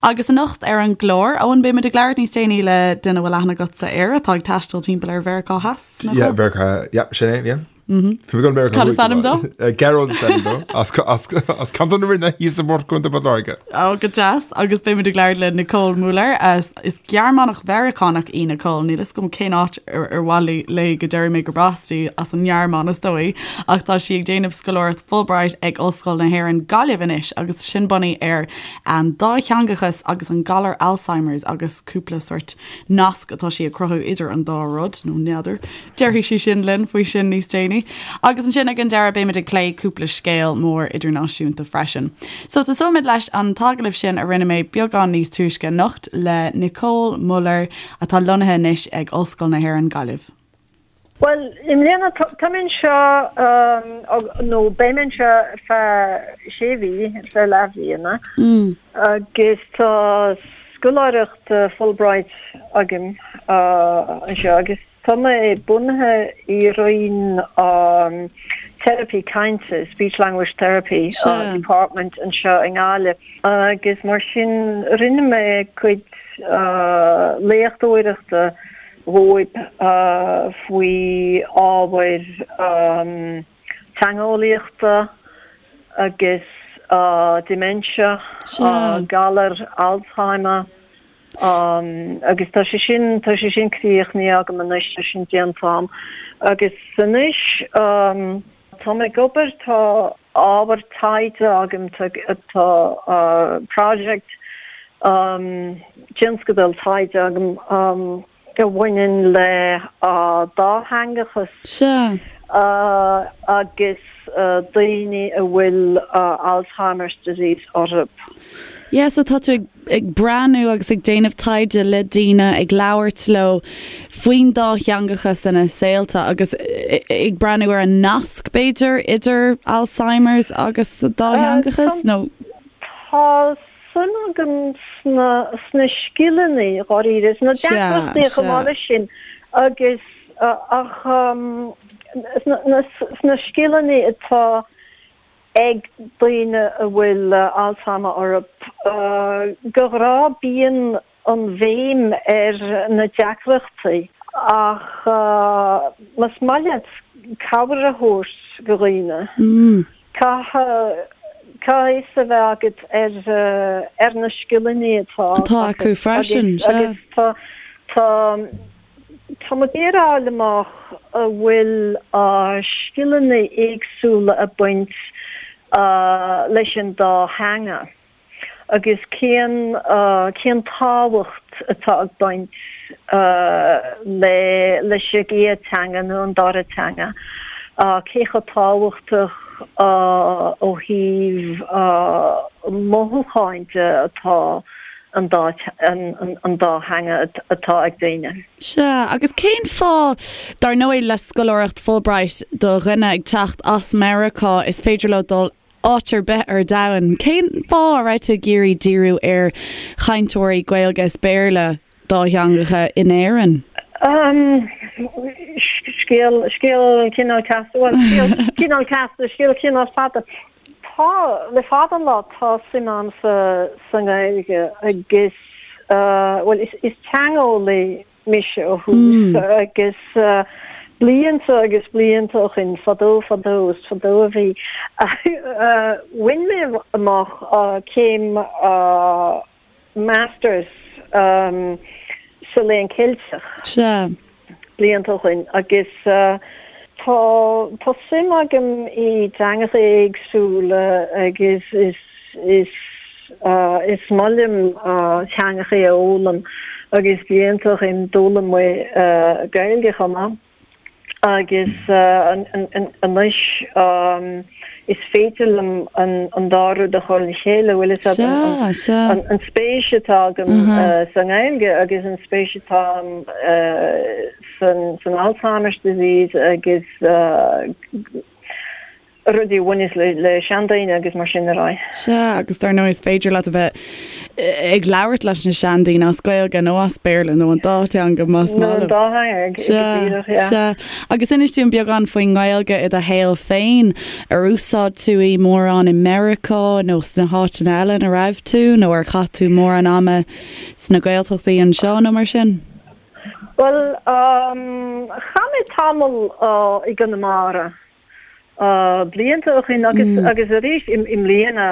Agus anocht ar an gclár, Eoin, beimid ag labhairt níos déanaí le duine a bhfuil aithne agatsa air atá ag taisteal timpeall ar Mheiriceá Theas, nach bhfuil? Yeah, Mheiriceá, yeah, sin é, yeah. Bhí mé ag dul Meiriceá Cad is ainm dó? Gearóid is ainm dó, as Ceantar na Rinne thíos i bPort Contae Port Láirge. Ó, go deas. Agus beimid ag labhairt le Nicole Muller. Is Gearmánach Mheiriceánach í Nicole. Níl fhios agam cén áit ar mhaith léi go déarfaidh mé gurb as di, as an nGearmáin is dóigh, ach tá sí ag déanamh scoláireacht Fulbright ag Ollscoil na hÉireann, Gaillimh anois agus sin bunaithe ar An dátheangachas agus an galar Alzheimer's agus cúpla sórt nasc atá sí ag cruthú idir an dá rud, nó n'fheadar. Déarfaidh sí sin linn faoi sin níos déanaí. Agus ansin ag an deireadh beimid ag plé cúpla scéal mór idirnáisiúnta freisin. So tosóimid leis an t-agallamh sin a rinne mé beagán níos túisce anocht le Nicole Muller atá lonnaithe anois ag Ollscoil na hÉireann Gaillimh. Bhuel, i mbliana tá mé anseo, nó beidh mé anseo ar feadh sé mhí, ar feadh leathbhliana, agus tá scoláireacht Fulbright agam anseo agus tá mé bunaithe i roinn teiripí cainte, Speech Language Therapy Department anseo i nGaillimh agus mar sin rinne mé cuid léachtóireachta dhóibh faoi ábhair teangeolaíochta agus dementia, galar Alzheimer agus tá sé sin, tá sé sin críochnaithe agam anois, tá sin déanta agam. Agus anois tá mé ag obair, tá ábhar taighde agam, tá project, tionscadal taighde agam a bhaineann le dátheangachas agus daoine a bhfuil Alzheimer's disease orthu. Yeah, so tá tú ag ag breathnú agus ag déanamh taighde le daoine, ag labhairt leo faoin dátheangachas ina saolta agus ag breathnú ar an nasc, b'fhéidir, idir Alzheimer's agus dátheangachas, nó? Tá suim agam sna sna scileanna, dháiríre, sna deacrachtaí chomh maith leis sin agus ach sna sna scileanna atá ag daoine a bhfuil Alzheimer orthu. De ghnáth bíonn an bhéim ar na deacrachtaí ach más maith leat cabhair a thabhairt do dhaoine, caithfidh caithfidh fios a bheith agat ar ar na scileanna atá atá acu freisin. Agus tá tá Tá mé ag iarraidh a fháil amach an bhfuil scileanna éagsúla ag baint leis an dá theanga agus cén cén tábhacht atá ag baint le leis an gcéad teanga nó an dara teanga, cé chomh tábhachtach ó thaobh mothúcháin de atá an dá an dá theanga atá ag daoine. Sea, agus cén fáth, dar ndóigh, le scoláireacht Fulbright do dhuine ag teacht as Meiriceá, is féidir leo dul áit ar bith ar domhan, cén fáth a raibh tú ag iarraidh díriú ar chainteoirí Gaeilge is Béarla dátheangacha in Éirinn? Scéal, scéal cineál casta, bhuel, scéal cineál casta, scéal cineál fada. Tá, le fada an lá, tá suim agam sa sa nGaeilge agus, bhuel, is is teangeolaí mise ó thús agus blianta agus blianta ó shin, fadó fadó, is fadó a bhí, bhain mé amach céim Masters sa Léann Ceilteach. Sea. Blianta ó shin agus tá tá suim agam i dteangacha éagsúla agus is is is maith liom teangacha a fhoghlaim agus blianta ó shin d'fhoghlaim mé Gaeilge chomh maith. Agus anois is féidir liom an dá rud a chur le chéile, bhfuil fhios agat, an spéis atá agam sa nGaeilge agus an spéis atá agam san Alzheimer's disease agus. Rudaí a bhaineas le seandaoine agus mar sin ar aghaidh. Sea, agus dar ndóigh is féidir leat a bheith ag labhairt leis na seandaoine as Gaeilge nó as Béarla nó an dá theanga más maith leo. Nó an dá theanga, go díreach, yeah. Sea, agus inis dúinn beagán faoin nGaeilge i do shaol féin. Ar úsáid tú í mórán i Meiriceá nó sna háiteanna eile ina raibh tú nó ar chaith tú mórán ama sna Gaeltachtaí anseo nó mar sin? Bhuel, chaith mé tamall i gConamara. Blianta ó shin agus agus arís i mbliana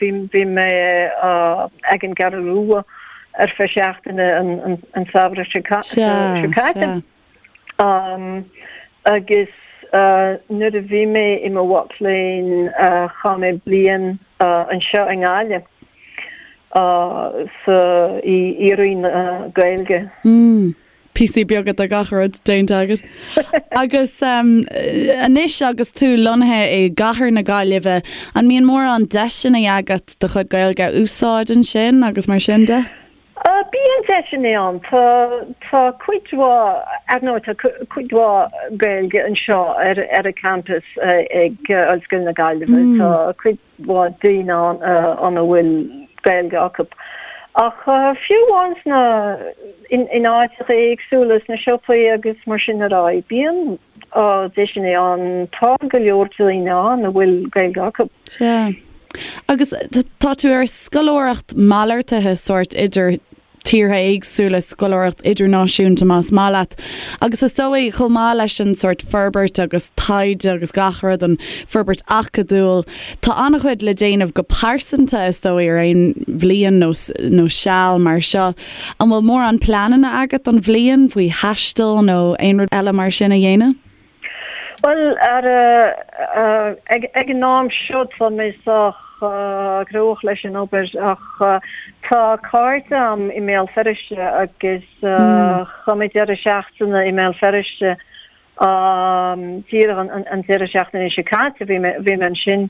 bhí bhí mé ag an gCeathrú Rua ar feadh seachtaine an samhradh seo caite. Agus nuair a bhí mé i mo mhac léinn chaith mé bliain anseo i nGaillimh sa i Roinn na Gaeilge. Píosaí beaga de gach rud déanta agat. Agus anois agus tú lonnaithe i gcathair na Gaillimhe, an mbíonn mórán deiseanna agat do chuid Gaeilge a úsáid ansin agus mar sin de? Bíonn deiseanna ann. Tá tá cuid mhaith, ar ndóigh tá cuid mhaith Gaeilge anseo ar ar an campus ag Ollscoil na Gaillimhe. Tá cuid mhaith daoine ann a bhfuil Gaeilge acu. Ach fiú amháin sna, in áiteacha éagsúla, sna siopaí agus mar sin ar aghaidh, bíonn deiseanna ann, tá go leor daoine ann a bhfuil Gaeilge acu. Sea. Agus tá tú ar scoláireacht malartaithe sórt idir tíortha éagsúla, scoláireacht idirnáisiúnta más maith leat. Agus is dóigh, chomh maith leis an sórt forbairt agus taighde agus gach rud, an forbairt acadúil, tá an-chuid le déanamh go pearsanta is dóigh ar aon bhliain nó nó seal mar seo. An bhfuil mórán pleananna agat don bhliain faoi thaisteal nó aon rud eile mar sin a dhéanamh? Bhuel, ar, ag an am seo tá mé sách gnóthach leis an obair ach tá cairde a'm i mBéal Feirste agus chaith mé deireadh seachtaine i mBéal Feirste díreach an deireadh seachtaine seo caite bhí mé bhí mé ansin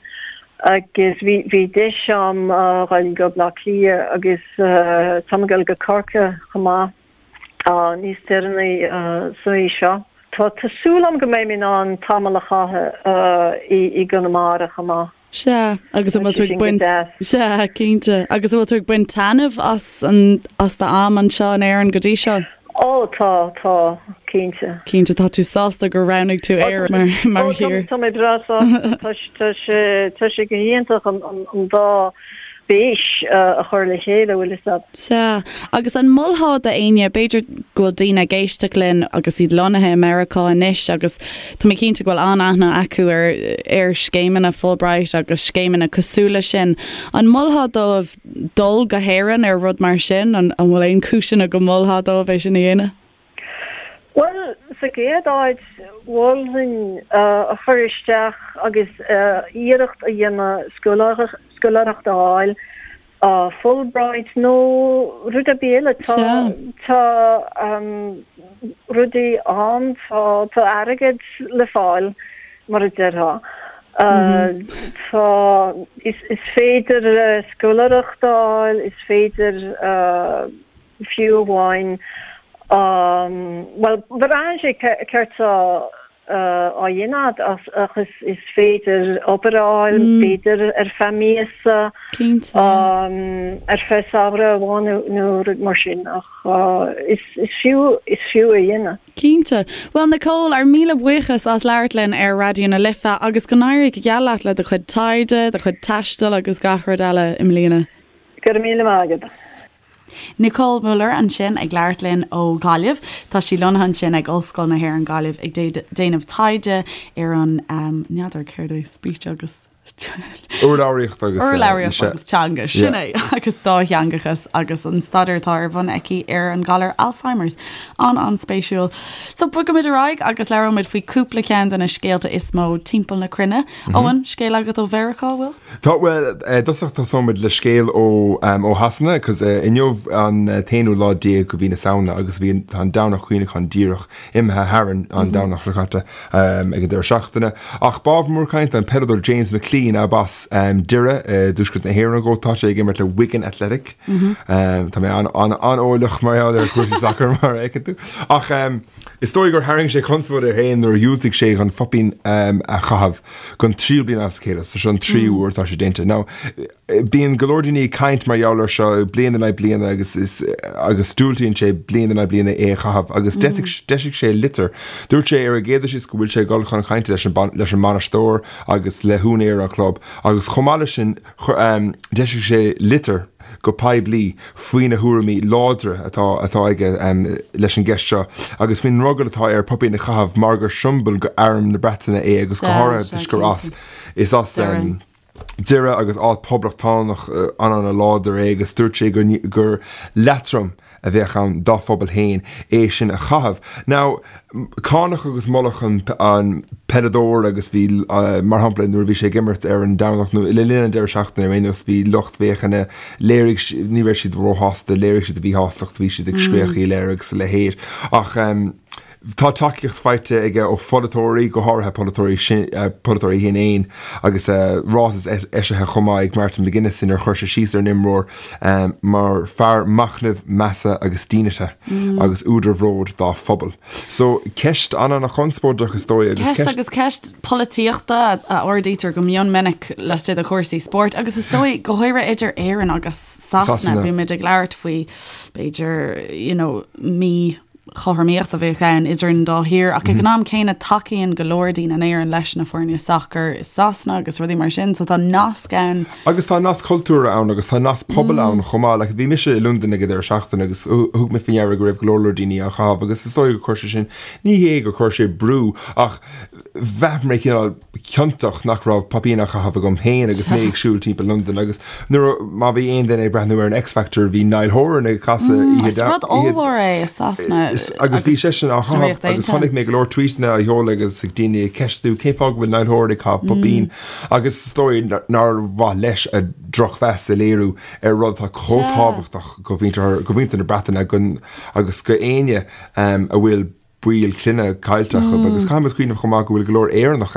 agus bhí bhí deis a'm dhul go Baile Átha Cliath agus táim ag dul go Corcaigh chomh maith. níos deireanaí sa mhí seo. Tá súil agam go mbeidh mé in ann tamall a chaitheamh i gConamara chomh maith. Sea, agus an bhfuil tú ag baint, sea, cinnte. Agus an bhfuil tú ag baint taitneamh as an, as d'am anseo in Éirinn go dtí seo? Ó, tá, tá, cinnte. Cinnte, tá tú sásta gur roghnaigh tú Éire mar, mar thír? Ó, tá mé breá sásta. Tá, tá sé, tá sé go hiontach an, an dá spéis a chur le chéile, bhfuil fhios a'd. Sea, agus an molfá d'éinne, b'fhéidir go bhfuil daoine ag éisteacht linn agus iad lonnaithe i Meiriceá anois agus tá mé cinnte go bhfuil an-aithne acu ar ar scéimeanna Fulbright agus scéimeanna cosúil leis sin, an molfá dóibh dul go hÉirinn ar rud mar sin? An bhfuil aon chúiseanna go molfá dóibh é sin a dhéanamh? Bhuel, sa gcéad áit, mholfainn a chur isteach agus iarracht a dhéanamh scoláireacht a fháil, Fulbright nó rud ar bith eile. Tá rudaí ann, tá airgead le fáil, mar a déarfá. Tá, is féidir scoláireacht a fháil, is féidir. fiú amháin, bhuel, braitheann sé céard tá á dhéanamh agat ach is féidir obair a fháil, b'fhéidir ar feadh míosa, ar feadh samhradh amháin nó rud mar sin ach is fiú, is fiú a dhéanamh. Cinnte. Bhuel Nicole, ár míle buíochas as labhairt linn ar Raidió na Life agus go n-éirí go geal leat le do chuid taighde, do chuid taistil agus gach rud eile i mbliana. Go raibh míle maith agat. Nicole Muller ansin ag labhairt linn ó Ghaillimh. Tá sí lonnaithe ansin ag Ollscoil na hÉireann Gaillimh ag déanamh taighde ar an, n'fheadar céard é, speech agus. Urlabhraíocht agus. Urlabhraíocht agus teanga, sin é, agus dátheangachas agus an staidéar atá ar bun aici ar an galar Alzheimer's. An-an-spéisiúil. So bogfaimid ar aghaidh agus labhróimid faoi cúpla ceann de na scéalta is mó timpeall na cruinne. Eoin, scéal agat ó Mheiriceá, bhfuil? Tá, bhuel, i dtosach tosóimid le scéal ó, ó Shasana, 'cause inniu an t-aonú lá déag de mhí na Samhna agus bhí, tá an Domhnach Cuimhneacháin díreach imithe tharainn an Domhnach seo caite ag an deireadh seachtaine. Ach b'ábhar mór cainte an peileadóir James McClean. McClean ab as Doire i dtuaisceart na hÉireann dhó. Tá sé ag imirt le Wigan Athletic. Tá mé an-eolach mar gheall ar chúrsaí sacair mar a fheiceann tú. Ach is dóigh gur tharraing sé conspóid air féin nuair a dhiúltaigh sé chun poipín a chaitheamh don tríú bliain as a chéile. So seo an tríú uair atá sé déanta. Now, Bíonn go leor daoine ag caint mar gheall air seo bliain in aghaidh bliana agus is agus diúltaíonn sé bliain in aghaidh bliana é a chaitheamh agus d'eisigh sé litir. Dúirt sé ar an gcéad dul síos go bhfuil sé ag dul chun cainte leis an leis an mbainisteoir agus le húinéir an chlub agus chomh maith leis sin d'eisigh sé litir go poiblí faoi na thuairimí láidre atá atá aige leis an gceist seo agus faoin ndrogall atá air poipín a chaitheamh mar gur siombail go arm na Breataine é agus go háirithe toisc gur as is as Doire agus áit poblachtánach an-an-láidir é agus dúirt sé gur leatrom a bheadh ann dá phobal féin é sin a chaitheamh. Now, cáineadh agus moladh an peileadóir agus bhí, mar shampla, nuair a bhí sé ag imirt ar an Domhnach nó le linn an deireadh seachtaine ar aon nós, bhí lucht féachana, léirigh, ní raibh siad róshásta, léirigh siad a mhíshástacht, bhí siad ag scréachaíl air agus a leithéid. Ach. Tá tacaíocht faighte aige ó pholaiteoirí, go háirithe polaiteoirí polaiteoirí Shinn Fhéin, agus ráiteas eisithe chomh maith ag Martin McGuinness inar chuir sé síos ar an imreoir mar fear machnaimh, measa agus dínite agus údar bhróid dá phobal. So, ceist an-an-chonspóideach is dóigh agus ceist. Agus ceist polaitíochta a ardaítear go mion minic laistigh de chúrsaí spóirt agus is dóigh go háirithe idir Éirinn agus Sasana, bímid ag labhairt faoi b'fhéidir you know mí chothromaíocht a bheadh ann idir an dá thír ach ag an am céanna tacaíonn go leor daoine in Éirinn leis na foirne sacair i Sasana agus rudaí mar sin so tá nasc ann. Agus tá nasc cultúrtha ann agus tá nasc pobail ann chomh maith. Like bhí mise i Londain ag an deireadh seachtaine agus thug mé faoi ndeara go raibh go leor leor daoine á chaitheamh agus is dóigh gur chuir sé sin, ní hé gur chuir sé brú ach bhraith mé cineál ciontach nach raibh poipín á chaitheamh agam féin agus mé ag siúl timpeall Londain agus nuair a, má bhí aon duine ag breathnú ar an X Factor bhí Niall Horan ag casadh oíche Is rud ollmhór é i Sasana agus bhí seisean á chaitheamh agus chonaic mé go leor tweetanna á sheoladh agus ag daoine ag ceistiú cén fáth go bhfuil Niall Horan ag caitheamh poipín agus is dóigh nár mhaith leis a drochmheas a léiriú ar rud atá chomh tábhachtach go mhuintir na Breataine agus go éinne a bhfuil baill clainne caillte acu agus caithfidh muid cuimhneamh chomh maith go bhfuil go leor Éireannach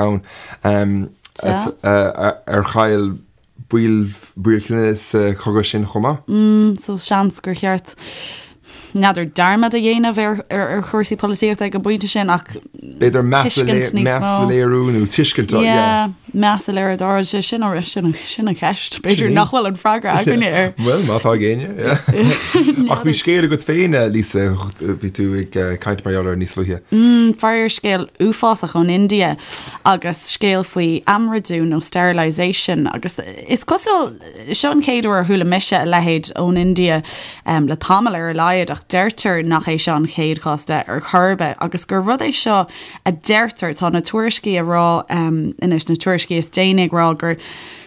ann ar chaill baill baill clainne sa chogadh sin chomh maith. So seans gur cheart n'fheadar dearmad a dhéanamh ar ar chúrsaí polaitíochta ag an bpointe sin ach b'fhéidir meas a léiriú nó tuiscint yeah meas a léiriú dá sé sin sin sin an cheist. B'fhéidir nach bhfuil an freagra againne air. Bhuel, má tá ag éinne, yeah. Ach bhí scéal agat féin, Lisa, bhí tú ag caint mar gheall air níos luaithe. Faraor scéal uafásach ón India agus scéal faoi aimridiú nó sterilisation agus is cosúil, seo an chéad uair a chuala mise a leithéid ón India le tamall ar a laghad ach deirtear nach é seo an chéad chás de ar chor ar bith agus gur rud é seo a deirtear, tá na tuairiscí a rá anois, na tuairiscí is déanaí ag rá gur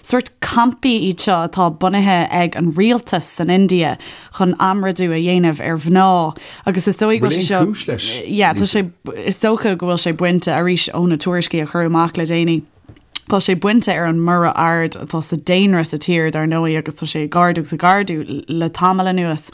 sórt campaí iad seo atá bunaithe ag an rialtas san India chun aimridiú a dhéanamh ar mhná agus is dóigh go bhfuil sé seo, cúis leis? yeah, tá sé, is dócha go bhfuil sé bainte arís ó na tuairiscí a cuireadh amach le déanaí. Tá sé bainte ar an mborradh ard atá sa daonra sa tír, dar ndóigh, agus tá sé ag ardú agus ag ardú le tamall anuas.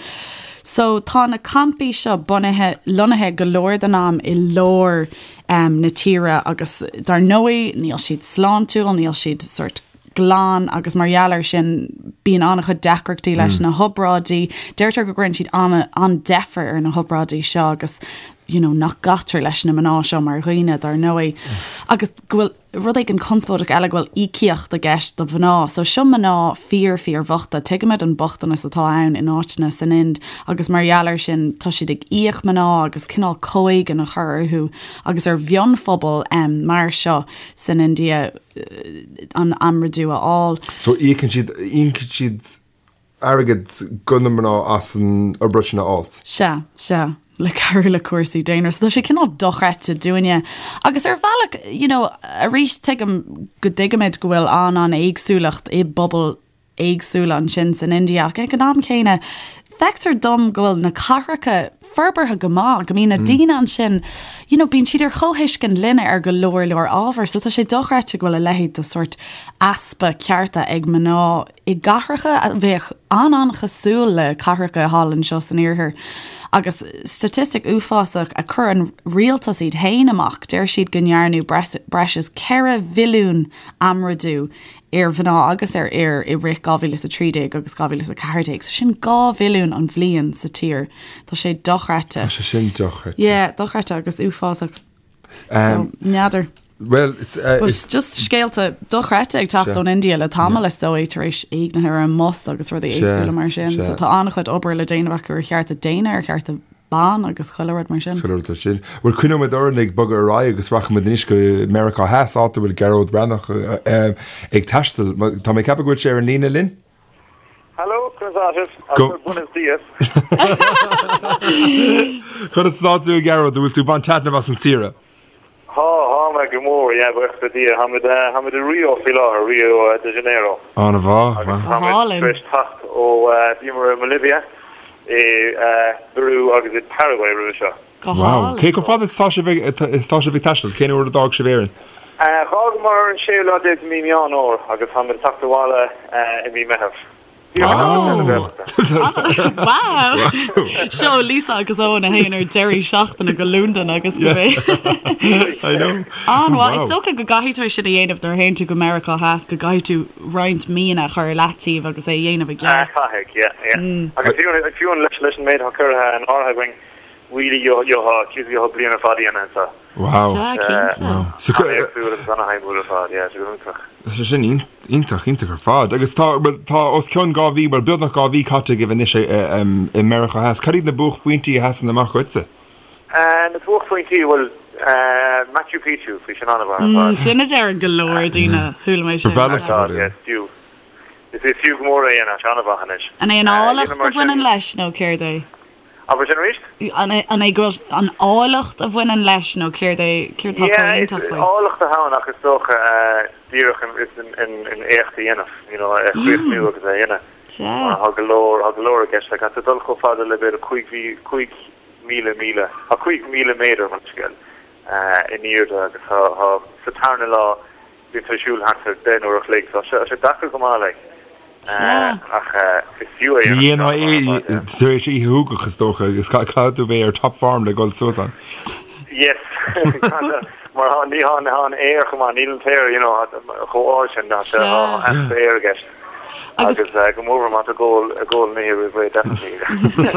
So tá na campaí seo bunaithe, lonnaithe go leor den am i lár na tíre agus dar ndóigh níl siad sláintiúil, níl siad sort glan agus mar gheall air sin bíonn an-chuid deacrachtaí leis na hobráidí. Deirtear go gcuireann siad an-deifir ar na hobráidí seo agus you know, nach gcaitear leis na mná seo mar dhaoine, dar ndóigh, agus go bhfuil rud éigin conspóideach eile go bhfuil íocaíocht i gceist do mhná. So seo mná fíor fíor bhochta. Tuigimid an bochtanas atá ann in áiteanna san Ind agus mar gheall air sin tá siad ag íoc mná agus cineál comhéigean a chur orthu agus ar mhionphobal um, mar seo san India an aimridiú a fháil. So íocann siad íocann siad airgead go na mná as an obráid sin a fháilt. Sea, sea, le cabhrú le cúrsaí daonra. So tá sé cineál dochreidte dúinne. Agus ar bhealach, you know, arís tuigim go dtuigimid go bhfuil an-an-éagsúlacht i bpobail éagsúla ansin san India ach ag an am céanna feictear dom go bhfuil na cathracha forbartha go maith, go mbíonn na daoine ansin, you know, bíonn siad ar chomhthuiscint linne ar go leor leor ábhar. So tá sé dochreidte go bhfuil a leithéid de sórt easpa cearta ag mná i gcathracha a bheadh an-an-chosúil le cathracha thall anseo san iarthar. Agus staitistic uafásach a chuir an rialtas iad féin amach, deir siad go ndearnadh breis is 4 mhilliún aimridiú ar mhná agus ar fhir i rith 2013 agus 2014. So sin 2 mhilliún an bhliain sa tír. Tá sé dochreidte. Tá sé sin dochreidte. Yeah, dochreidte agus uafásach. So, n'fheadar. Bhuel, is. But just scéalta dochreidte ag teacht ón India le tamall is dóigh tar éis éignithe ar an mbus agus rudaí éagsúla mar sin. So tá an-chuid obair le déanamh acu ar chearta daonna, ar chearta ban agus chuile rud mar sin. Chuile rud mar sin. Bhuel, coinneoidh muid orainn ag bogadh ar aghaidh agus rachaidh muid anois go Meiriceá Theas, áit a bhfuil Gearóid Breathnach ag taisteal. Tá mé ag ceapadh go bhfuil sé ar an líne linn? Hello, conas tá sibh? Go. Buenos dias. Conas atá tú, a Ghearóid? An bhfuil tú ag baint taitneamh as an tsaoire? Tá, tá mé go mór, yeah, buíochas le Dia. Táimid, táimid i Rio faoi láthair, Rio de Janeiro. An-mhaith, Agus wow. táimid Álainn. tar éis teacht ó, bhíomar i mBolivia, i bPeru agus i Paraguay roimhe seo. Go Wow. hálainn. Cé chomh fada is atá sibh ag, is atá sibh ag taisteal? Cén uair a d'fhág sibh Éirinn? D'fhágamar ar an séú lá déag de mí Meán Fhómhair agus táimid ag teacht abhaile i mí Meitheamh. Wow! Seo Lisa agus Eoin a théann ar deirí seachtaine go Londain agus go bé. I know. An-mhaith. Is dócha go gcaithfidh tú é sin a dhéanamh nuair a théann tú go Meiriceá Theas, go gcaithfidh tú roinnt míonna a chur ar leataobh agus é a dhéanamh i gceart. Caithfidh, yeah, yeah. Agus fiú fiú leis an méid atá curtha in áirithe againn, really gheofá bliain ar fad a dhéanamh anseo. Wow. Sea, cinnte. Wow. So, An-éagsúil agus an-shuimiúil ar fad, yeah, sé go hiontach. Tá sé sin iontach, iontach ar fad. Agus tá, bhuel, tá os cionn 2 mhí, bhuel, beagnach 2 mhí caite agaibh anois i Meiriceá Theas. Cad iad na buaicphointí a sheasann amach dhuitse? Na buaicphointí, bhuel, Machu Picchu, bhí sin an-mhaith ar fad. Sin a deireann go leor daoine, chuala mé sin. Ba bhreá liomsa Ar fad, yeah, is fiú. Is fiú go mór é a dhéanamh, tá sé an-mhaith anois. An é an áilleacht a bhaineann leis nó céard é? Abair sin arís? An é go bhfuil an áilleacht a bhaineann leis nó céard é, céard atá chomh iontach faoi? Yeah, áilleacht atá ann ach is dócha díreach an éacht a dhéanamh, you know, é a chríochnú agus é a dhéanamh. Sea. Mar tá go leor, tá go leor i gceist. Like, tá tú ag dul chomh fada le b'fhéidir 5,000 míle, tá 5,000 méadar, mo leithscéal, in airde agus tá, sa tarna lá, Bíonn tú ag siúl thart ar 10 n-uair a chloig, so tá sé deacair go maith like. Sea. Ach is fiú é Ní dhéanfá é tar éis oíche shúgach is dócha agus caithfidh tú bheith ar top form le dhul suas ann. Yes. Mar tá ní tá an aer chomh maith, níl an t-aer you know chomh ard sin, tá sé tá easpa aeir i gceist. Agus go mór má tá tú ag ól an oíche roimh ré definitely.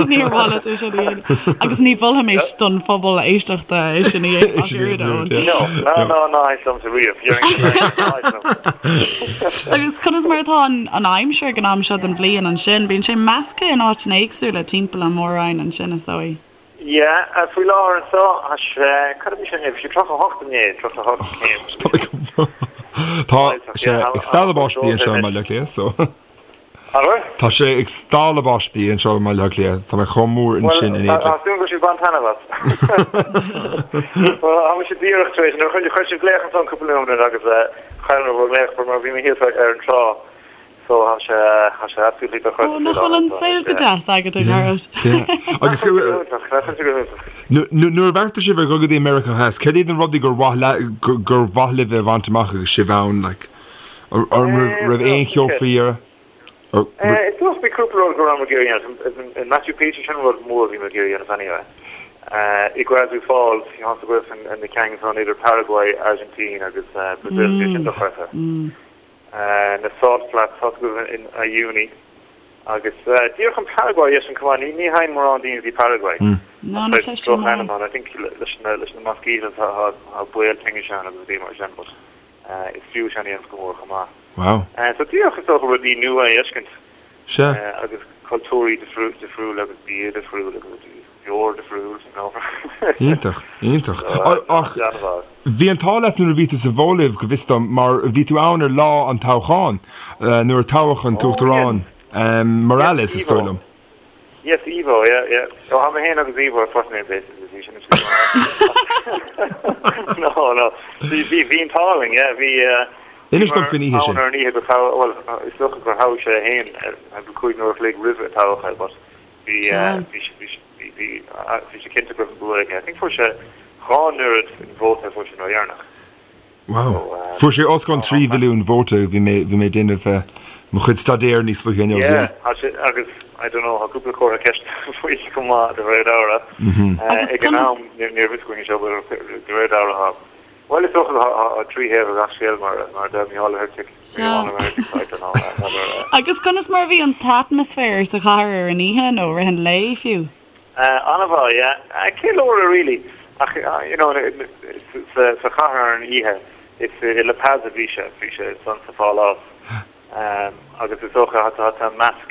Níor mhaith leat é sin a dhéanamh. Agus ní mholfaimis don phobal éisteachta é sin a dhéanamh ach oiread, Eoin. No, ná ná ná thit liomsa riamh. Agus conas mar atá an aimsir ag an am seo den bhliain ansin? Bíonn sé measctha in áiteanna éagsúla timpeall an mhór-roinn ansin, is dóigh. Yeah, faoi láthair anseo, tá sé, cad a bhí sé inné? Bhí sé 38 inné, 38 céim. Tá sé ag stealladh báistí anseo i mBaile Átha Cliath, so. An bhfuil? Tá sé ag stealladh báistí anseo i mBaile Átha Cliath, tá mé chomh mór ansin in éindí. Tá súil go bhfuil sibh ag baint taitneamh as. Bhuel, tá mise díreach tar éis, nuair a chuir sibh glaoch ansan cúpla nóiméad agus chaill mé bhur nglaoch mar bhí mé thíos ar an trá. So tá sé, tá sé absolutely dochreidte. Ó, nach bhfuil an saol go deas agat, a Ghearóid? Agus nuair a bheartaigh sibh ar dhul go dtí Meiriceá Theas, céard iad na rudaí gur mhaith le, gur mhaith libh a bhaint amach agus sibh ann, like, an raibh aon cheo faoi dheireadh? Is dócha bhí cúpla rud go raibh mé ag iarraidh a dhéanamh. In Machu Picchu sin rud mór a bhí mé ag iarraidh a dhéanamh anyway. Iguazu Falls, tá a fhios agaibh na ceangail ansan idir Paraguay, Argentina agus Brazil, bhí sin dochreidte. na Salt Flats, tá a fhios agaibh in Uyuni agus díreach an Paraguay é sin chomh maith, ní théann mórán daoine go dtí Paraguay. No, ní chloisim mórán. I think leis na leis na mosquitoes tá baol tinnis ann agus rudaí mar sin but is fiú sin a dhéanamh go mór chomh maith. Wow. So díreach is dócha rudaí nua a fheiscint Sea. agus cultúirí difriúla agus bia difriúil agus rudaí. Beoir difriúil, you know. Iontach, iontach. Ach bhí an t-ádh leat nuair a bhí tú sa Bholaiv, go bhfios dom, mar bhí tú ann ar lá an toghcháin, nuair a toghadh an tUachtarán Morales, is dóigh liom. Yes, Evo, yeah, yeah. Ó, tá mé féin agus Evo ar first name basis, bhí sin No, no. Bhí, bhí, bhí an t-ádh linn, yeah, bhí, Inis dom faoin oíche sin. Ann ar an oíche go toghadh, bhuel, is dócha gur thoghadh sé é féin, 5 uair a chloig roimh a toghadh é, but Bhí bhí sé cinnte go raibh an bua aige. I think fuair sé dhá n-oiread an vóta a fuair sé an uair dheireanach. Wow. Fuair sé os cionn 3 mhilliún vóta, bhí mé bhí mé ag déanamh mo chuid staidéir níos luaithe inniu. Yeah, tá sé agus I don't know, tá cúpla comhartha ceiste faoi chomh maith de réir dealraimh. Ag an am ní raibh fhios againn seo but de réir dealraimh tá bhuel is dócha tá 3 thaobh ag gach scéal mar mar a deir Micheál Ó hEirtigh, Micheál Ó hEirtigh, I don't know, n'fheadar. Agus conas mar a bhí an t-atmaisféar sa chathair ar an oíche nó rith an lae fiú? An-mhaith, yeah. Ceiliúradh really. Ach, you know, sa chathair ar an oíche, is i La Paz a bhí sé, bhí sé ansan sa phálás. Agus is dócha, tá tá measc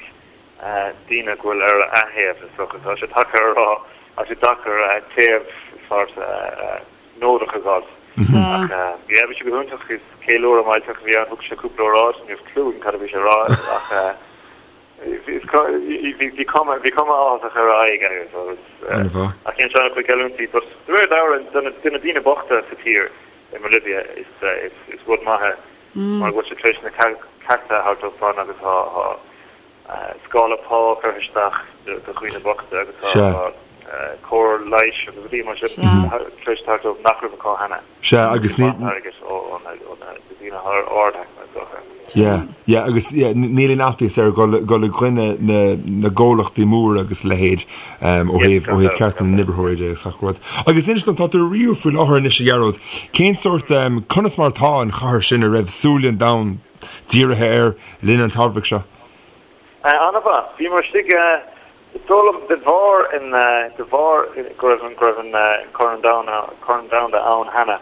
daoine go bhfuil ar a thaobh, is dócha. Tá sé deacair a rá, tá sé deacair taobh sort neodrach a fháil. Ach, yeah, bhí sé go hiontach, is ceiliúradh millteach a bhí ann, thug sé cúpla óráid, ní raibh clue agam cad a bhí sé a rá ach, Bhí cuma bhí cuma áthasach ar a aghaidh agus agus ach dhein sé an-chuid geallúintí but de réir dealraimh do na do na daoine bochta sa tír i mBolivia is is is rud maith é mar go bhfuil sé tar éis na cearta a thabhairt dóibh agus tá tá scála pá curtha isteach do do dhaoine bochta agus tá tá cóir leighis agus rudaí mar sin tar éis teacht dóibh nach raibh acu cheana. Sea, agus ní. Yeah, yeah, agus yeah, níl aon fhaitíos air dul dul i gcoinne na na gcomhlachtaí móra agus a leithéid um, ó thaobh ó thaobh cearta na n-oibritheoirí de agus gach rud. Agus inis dom, tá tú i Rio faoi láthair anois a Ghearóid, cén sórt um, conas mar atá an chathair sin a raibh súile an domhain dírithe air le linn an tsamhraidh seo? An-mhaith. Bhíomar istigh Is dóigh liom, de bharr an, de bharr go raibh an, go raibh an Corn Domhanda, Corn Domhanda ann cheana,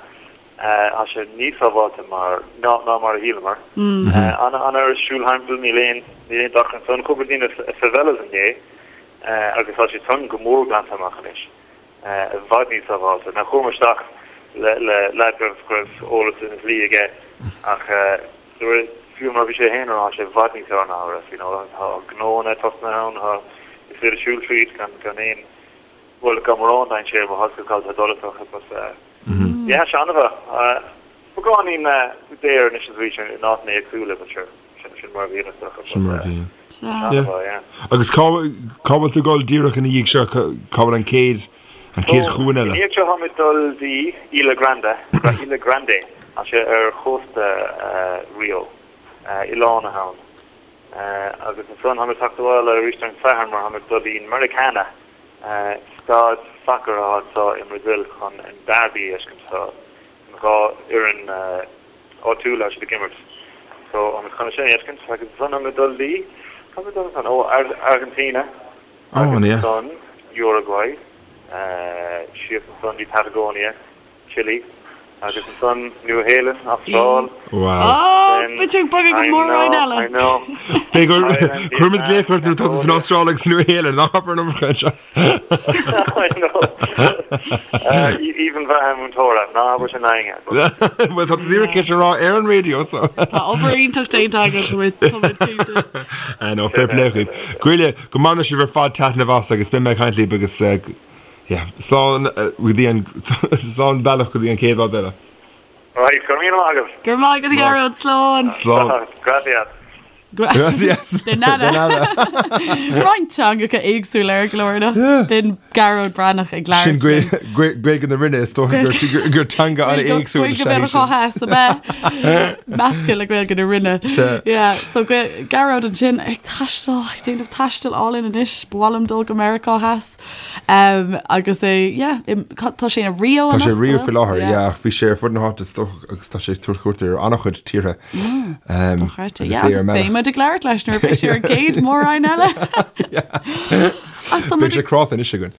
tá sé níos sábháilte mar, ná, ná mar a shíleamar. An, an oiread siúl thimpeall, níl aon, níl aon dochar ansan. Chuamar dtí na favelas inné agus tá siad san go mór glanta amach anois. I bhfad níos sábháilte. Now chuamar isteach le, le leaid go raibh, go raibh eolas ar an dlí aige ach fiú mar a bhí sé féin a rá, tá sé i bhfad níos fearr ná a raibh, you know, tá gnóanna tosnaithe ann, tá, is féidir siúl tríd gan, gan aon, bhuel, gan mórán dainséir, má tá tú ag dul is dócha, but yeah, tá sé an-mhaith. Beagáinín daor anois is arís in áiteanna éagsúla, but sure, sin, sin mar a bhíonn is dócha, Sin mar a bhíonn. Yeah. Agus cá, cá bhfuil tú ag dul díreach ina dhiaidh seo, cá bhfuil an chéad, an chéad chuan eile? Ina dhiaidh seo táimid dul dtí Ilha Grande, Ilha Grande, tá sé ar chósta Rio, oileán atá ann. Agus ansan táimid teacht abhaile arís ar an Satharn mar táimid dul dtí Maracana, staid sacair atá anseo i mBrazil chun an derby a fheiscint. Tá an 2 fhoireann áitiúla tá siad ag imirt. So táimid chun é sin a fheiscint agus ansan táimid dul dtí, cá bhfuil muid dul ansan? Ó, Argentina. Agus ansan Uruguay, síos ansan dtí Patagonia, Chile, agus ansan Nua Shéalainn, Astráil. Wow. Beidh tú ag bogadh go mór-roinn eile. I know. Beidh gur cuirfimid glaoch ort nuair atá tú san Astráil agus Nua Shéalainn, ná habair an iomarca anseo. I know. Aoibhinn bheatha múinteora, ná habair sin éinne. Bhuel, tá tú díreach tar éis a rá ar an raidió, so. Tá obair iontach déanta agat, tá muid cinnte. I know, fair play dhaoibh. Goile, go mbaine sibh ar fad taitneamh as agus beidh mé ag caint libh agus yeah, slán go dtí an slán bealach go dtí an chéad rud eile. Right, go raibh míle maith agat. Go raibh maith agat a Ghearóid, slán. Slán. Gracias. Gracias. De nada. De nada. Roinnt teangacha éagsúla ar an gclár anocht. B'in Gearóid Breathnach ag labhairt. Sin Gaeilge na Rinne is dócha gur teanga an-éagsúil is ea í sin. Gaeilge Theas ab ea? Measctha le Gaeilge na Rinne. Sea. Yeah, so Gearóid ansin ag taisteal, ag déanamh taistil álainn anois, ba mhaith liom dul go Meiriceá Theas. Um, agus é, yeah, tá sé i Rio Tá sé i Rio faoi láthair, yeah, ach bhí sé ar fud na háite is dócha agus tá sé ag tabhairt cuairt ar an-chuid tíortha. Mm, um, Dochreidte, yeah, agus beidh muid ag labhairt leis nuair a bheidh sé ar an gcéad mhór-roinn eile. Beidh sé cráite anois againn.